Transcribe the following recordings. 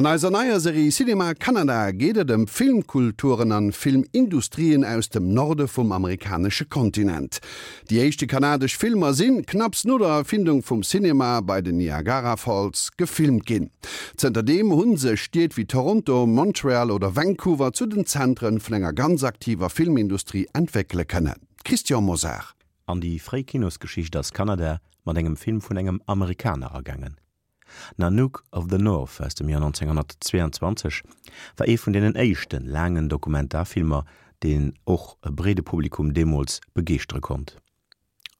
An eiser neier Serie Cinéma Canada geet et ëm Filmkulturen an Filmindustrien aus dem Norde vum amerikanesche Kontinent. Déi éischte kanadesch Filmer sinn, knapps no der Erfindung vum Cinema, bei den Niagara Falls gefilmt ginn. Zënterdeem hu sech Stied wéi Toronto, Montreal oder Vancouver zu den Zentren vun enger ganz aktiver Filmindustrie entwéckele kënnen. Christian Mosar. An déi fréi Kinosgeschicht ass Kanada mat engem Film vun engem Amerikaner agaangen. Nanook of the North aus dem Joer 1922 war ee vun deenen éischte laangen Dokumentarfilmer, deen och e breede Publikum deemools begeeschtere konnt.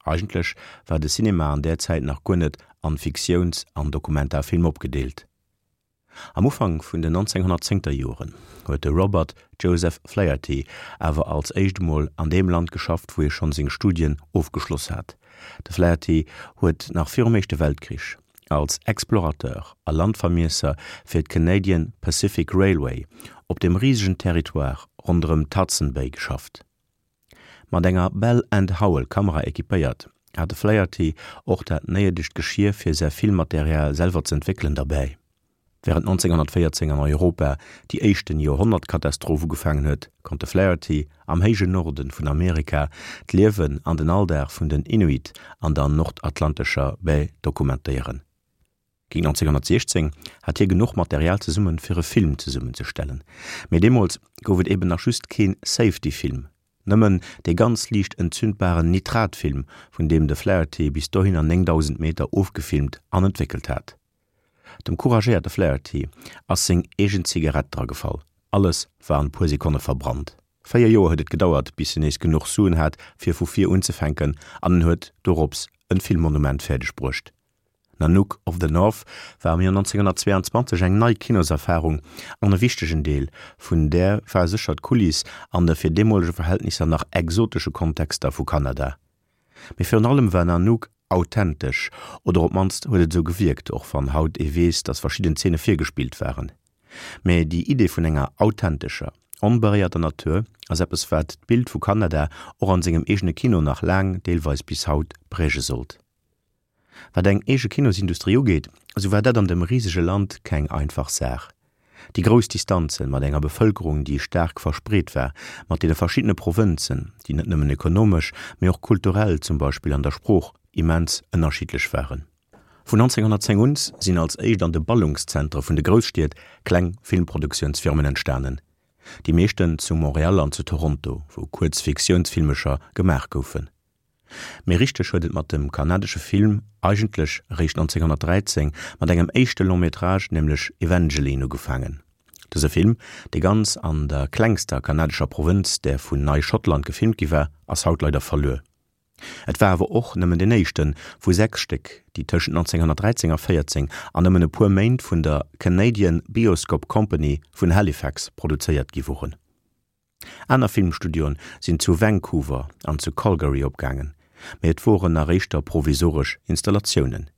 Eigentlech war de Cinema an där Zäit nach guer net an Fiktiouns an Dokumentarfilm opgedeelt. Am Ufank vun den 1910er Joren huet de Robert Joseph Flaherty awer als éischt emol an deem Land geschafft, wou hie schonn seng Studien ofgeschloss hat. De Flaherty huet nach virum Éischte Weltkrich als Explorateur a Landvermiesser fir d'Canadian Pacific Railway op dem risegen Territoire ronderëm d'Hudson Bay geschafft. Mat enger Bell and Howell Kamera equipéiert, hat de Flaherty och dat néidegt Geschier fir säi Filmmaterial selwer z'entwéckelen derbäi. Wärend 1914 an Europa déi éischten Joerhonnertkatastroph ugefaangen huet, konnt de Flaherty am héijen Norde vun Amerika d'Liewen an den Alldag vun den Inuit an der nordatlantescher Bay dokumentéieren. Géint 1916 hat hie genuch Material zesummen, fir e Film zesummenzestellen. Mee deemools gouf et eben nach just keen Safety-Film, nëmmen dee ganz liicht entzündbaren Nitratfilm, vun deem de Flaherty bis dohinner 9.000 Meter ofgefilmt an entwéckelt hat. Dem couragéierte Flaherty ass seng eegen Zigarett dragefall, alles war an puer Sekonne verbrannt. 4 Joer huet et gedauert, bis en nees genuch Suen hat, fir vu vir unzefänken, an en huet dorops en Filmmonument fäerdeg bruecht. Nanook of the North war am Joer 1922 eng nei Kinoserfarung an e wichtegen Deel vun där war sécher d'Kuliss an de fir deemolege Verhältnisser nach exotesche Kontexter vu Kanada. Mee virun allem war Nanook authentesch, oder op d'mannst huet et esou gewierkt, och wann haut ee weess, datt verschidden Zeene virgespillt waren. Mee déi Idee vun enger authentescher, onberéierter Natur ass eppes wat d'Bild vu Kanada och an sengem eegene Kino nach laang, deelweis bis haut, präge sollt. Wat eng eege Kinosindustrie ugeet, esou war dat an dem risege Land keng einfach Saach. Déi grouss Distanzen, mat enger Bevëlkerung, déi staark verspreet war, mat deene verschiddene Provënzen, déi net nëmmen ekonomesch, mee och kulturell, zum Beispill an der Sprooch, immens ënnerschiddlech waren. Vun 1910 un sinn als éischt an de Ballungszentre vun de Grousstied kleng Filmproduktiounsfirmen entstanen, déi meeschten zu Montréal an zu Toronto, wou kuerz Fiktiounsfilmecher gemaach goufen. Mee richteg huet et mat dem kanadesche Film eigentlech eréischt 1913 mat engem éischte Long Métrage, nämlech Evangeline, ugefaangen. Dëse Film, dee ganz an der klengster kanadescher Provënz, där vun Nei-Schottland, gefilmt gi war, ass haut leider verluer. Et war awer och nëmmen deen éischte vu 6 Stéck, déi tëschent 1913 a 14 an nëmmen e puer Méint vun der Canadian Bioscope Company vun Halifax produzéiert gi woren. Aner Filmstudioen sinn zu Vancouver an zu Calgary opgaangen, mee et woren nach éischter provisoresch Installatiounen.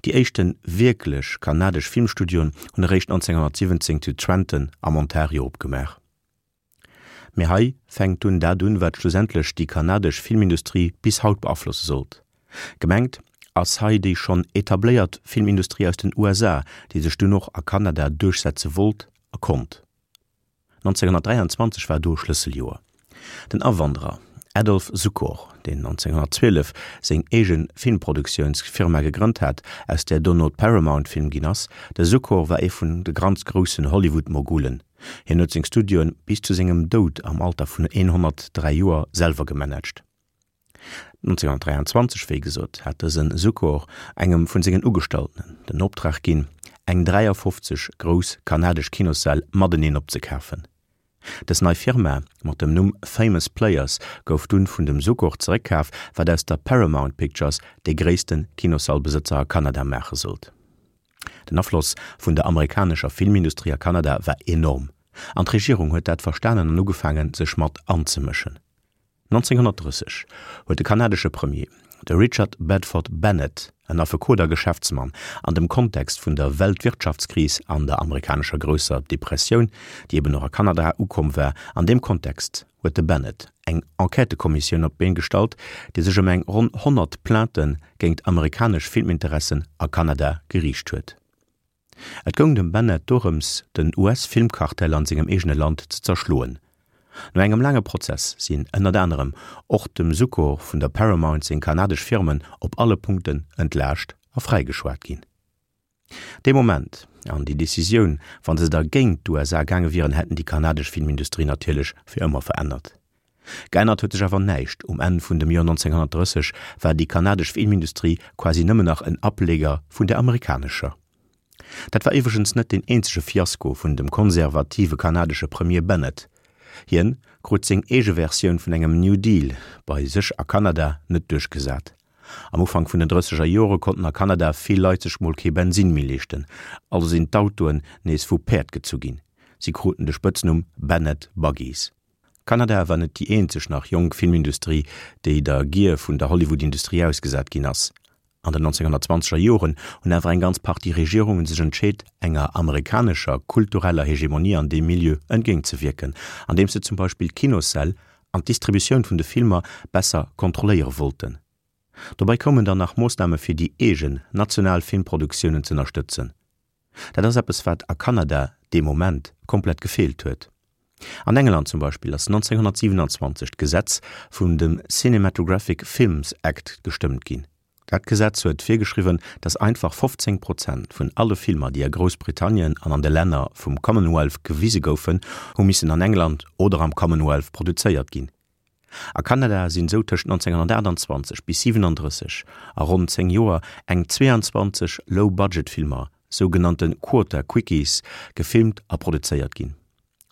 Déi éischte wierklech kanadesch Filmstudioen hunn eréischt 1917 zu Trenton am Ontario opgemaach. Mee hei fänkt dunn dat un, wat schlussendlech déi kanadesch Filmindustrie bis haut beaflosse sollt. Gemengt ass hei déi schonn etabléiert Filmindustrie aus den USA, déi sech dunn och a Kanada duerchsetze wollt a konnt. 1923 war do Schlësseljoer. Den Awanderer Adolph Zukor, deen 1912 seng eege Filmproduktiounsfirma gegrënnt hat, aus där dono d'Paramount Film ginn ass, de Zukor war ee vun de ganz groussen Hollywood-Mogulen. Hien huet seng Studioen bis zu sengem Doud am Alter vun 103 Joer selwer gemanagt. 1923, wéi gesot, hat dëse Zukor engem vun sengen Ugestallten den Optrag ginn, eng 53 grouss kanadesch Kinossäll mateneen opzekafen. Dës nei Firma mat dem Numm Famous Players gouf dunn vun dem Zukor zeréckkaf, wat aus der Paramount Pictures dee gréisste Kinossallbesëtzer a Kanada maache sollt. Den Afloss vun der amerikanescher Filmindustrie a Kanada war enorm, an d'Regierung huet dat verstanen an ugefaangen, sech mat anzemëschen. 1930 huet de kanadesche Premier, de Richard Bedford Bennett, en Affekot a Geschäftsmann, an dem Kontext vun der Weltwirtschaftskris an der amerikanescher Grousser Depressioun, déi eben och a Kanada ukomm war, an deem Kontext huet de Bennett eng Enquêtëkommissioun op d'Been gestallt, déi sech ëm eng ronn 100 Plaintë géingt amerikanesch Filminteressen a Kanada geriicht huet. Et goung dem Bennett dorëms, den US-Filmkartell an sengem eegene Land ze zerschloen. No engem laange Prozess sinn ënnert anerem och dem Zukor vun der Paramount seng kanadesch Firmen op alle Punkten entlaascht a fräigeschwat ginn. Dee Moment an déi Decisioun, wa se da géint d'USA gaange wieren, hätten déi kanadesch Filmindustrie natierlech fir ëmmer verännert. Geännert huet sech awer näischt, um Enn vun dem Joer 1930 war déi kanadesch Filmindustrie quasi nëmmen nach en Ableger vun der amerikanescher. Dat war iwwregens net deen eenzege Fiasko vun dem konservative kanadesche Premier Bennett. Hien krut seng eege Versioun vun engem New Deal bei sech a Kanada net duerchgesat. Am Ufank vun den drësseger Jore konnten a Kanada vill Leit sech mol kee Bensinn méi leeschten, also sinn d'Autoen nees vu Päerd gezu ginn. Si kruten de Spëtznumm Bennett Buggies. Kanada war net déi eenzeg nach jonk Filmindustrie, déi der Gier vun der Hollywood-Industrie ausgesat ginn ass. An den 1920er Joren hunn awer eng ganz Partie Regierungen sech entscheet, enger amerikanescher kultureller Hegemonie an deem Milieu entgéintzewierken, andeems se zum Beispill d'Kinossäll an d'Distributioun vun de Filmer besser kontrolléiere wollten. Dobäi koumen dann nach Moossname fir déi eegen national Filmproduktiounen z'ënnerstëtzen. Dat ass eppes wat a Kanada dee Moment komplett gefeelt huet. An England zum Beispill ass 1927 d'Gesetz vun dem Cinematographic Films Act gestëmmt ginn. Dat Gesetz huet virgeschriwwen, datt einfach 15 Prozent vun alle Filmer, déi a Groussbritannien an an de Länner vum Commonwealth gewise goufen, hu missen an England oder am Commonwealth produzéiert ginn. A Kanada sinn esou tëscht 1928 bis 37, a ronn 10 Joer, eng 22 Low-Budget-Filmer, sougenannte Quota Quickies, gefilmt a produzéiert ginn.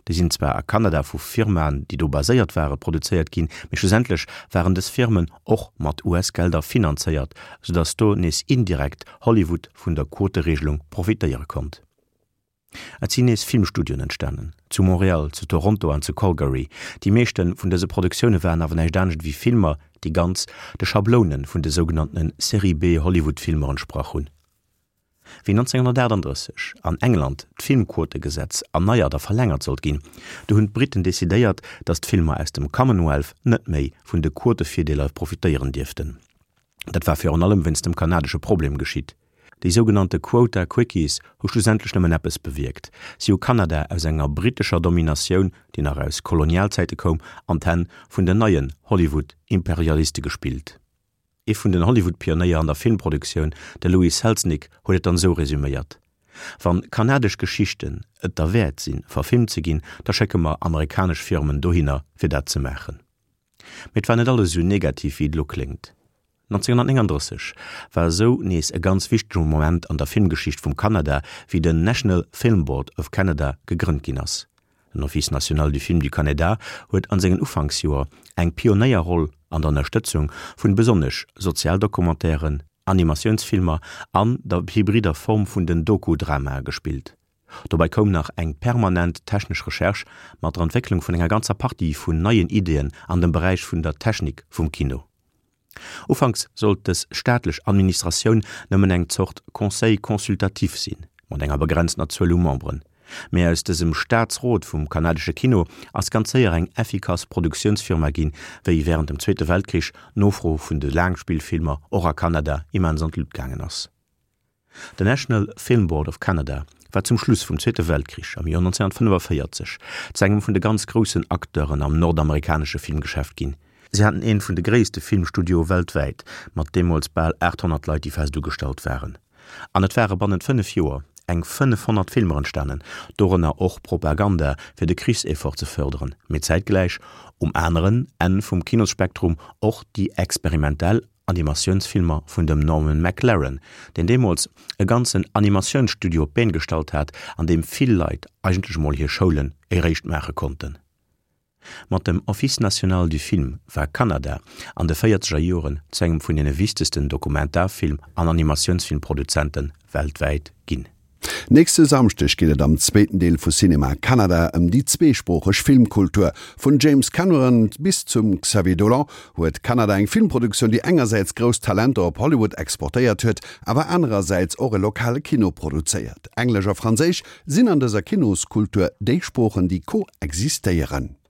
Déi sinn zwar a Kanada vu Firmaen, déi do baséiert waren, produzéiert ginn, mee schlussendlech waren dës Firmen och mat US-Gelder finanzéiert, soudatt do nees indirekt Hollywood vun der Quoteregelung profitéiere konnt. Et sinn nees Filmstudioen entstanen, zu Montréal, zu Toronto an zu Calgary. Déi meeschte vun dëse Produktioune waren awer näischt anescht ewéi Filmer, déi ganz de Schabloune vun de sougenanntene Série-B-Hollywood-Filmer entsprach hunn. Wéi 1938 an England d'Filmquotegesetz erneiert a verlängert sollt ginn, du hunn d'Briten decidéiert, datt d'Filmer aus dem Commonwealth net méi vun de Quotevirdeeler profitéieren dierften. Dat war virun allem wéinst dem kanadesche Problem geschitt. Déi sougenannte Quota Quickies hu schlussendlech nëmmen eppes bewierkt, Si hu Kanada aus enger brittescher Dominatioun, déi nach aus Kolonialzäite koum, an d'Hänn vun den neien Hollywood-Imperialiste gespillt. Ee vun den Hollywood-Pionéier an der Filmproduktioun, de Louis Selznick, huet et dann esou resüméiert, Wann kanadesch Geschichten et derwäert sinn, verfilmt ze ginn, da schécke mer amerikanesch Firmen dohinner, fir dat ze maachen. Mee et war net alles esou negativ wéi et elo kléngt. 1939 war esou nees e ganz wichtege Moment an der Filmgeschicht vum Kanada, wéi den National Film Board of Canada gegrënnt ginn ass. Den Office national du film du Canada huet an sengen Ufanksjoer eng Pionéierroll an der Ënnerstëtzung vun besonnesch Sozialdocumentairen, Animatiounsfilmer an der hybrider Form vun den Doku-Dramae gespillt. Dobäi koum nach eng permanent technesch Recherche mat der Entwécklung vun enger ganzer Partie vun neien Ideeën an dem Beräich vun der Technik vum Kino. Ufanks sollt dës staatlech Administratioun nëmmen eng Zort Conseil consultatif sinn, mat enger begrenztener Zuel u Memberen. Mee aus dësem Staatsrot vum kanadesche Kino ass ganz séier eng effikass Produktiounsfirma ginn, wéi wärend dem Zweete Weltkrich d'Nofro vun de Laangspillfilmer och a Kanada immens an d'Lut gaangen ass. Den National Film Board of Canada war zum Schluss vum Zweete Weltkrich am Joer 1945 zu engem vun de ganz groussen Acteuren am nordamerikanesche Filmgeschäft ginn. Si haten een vun de gréisste Filmstudioe weltwäit, mat deemools bal 800 Leit déi fest ugestallt waren. An et ware bannent 5 Joer eng 500 Filmer entstanen, dorënner och Propaganda fir de Krichseffort ze fërderen, mee zäitgläich um aneren Enn vum Kinosspektrum och déi experimentell Animatiounsfilmer vun dem Norman McLaren, deen deemools e ganzen Animatiounsstudio op d'Been gestallt hat, an deem vill Leit eigentlech emol hir Schoulen eréischt maache konnten. Mat dem Office national du film war Kanada an de véierzeger Joren zu engem vun deene wichtegsten Dokumentarfilm an Animatiounsfilmproduzente weltwäit ginn. Nächste Samschdeg geet et am zweeten Deel vu Cinéma Canada ëm déi zweesproocheg Filmkultur. Vun James Cameron bis zum Xavier Dolan huet Kanada eng Filmproduktioun, déi engersäits grouss Talenter op Hollywood exportéiert huet, awer anerersäits och e lokale Kino produzéiert. Englesch a Franséisch sinn an dëser Kinoskultur déi Sproochen, déi koexistéieren.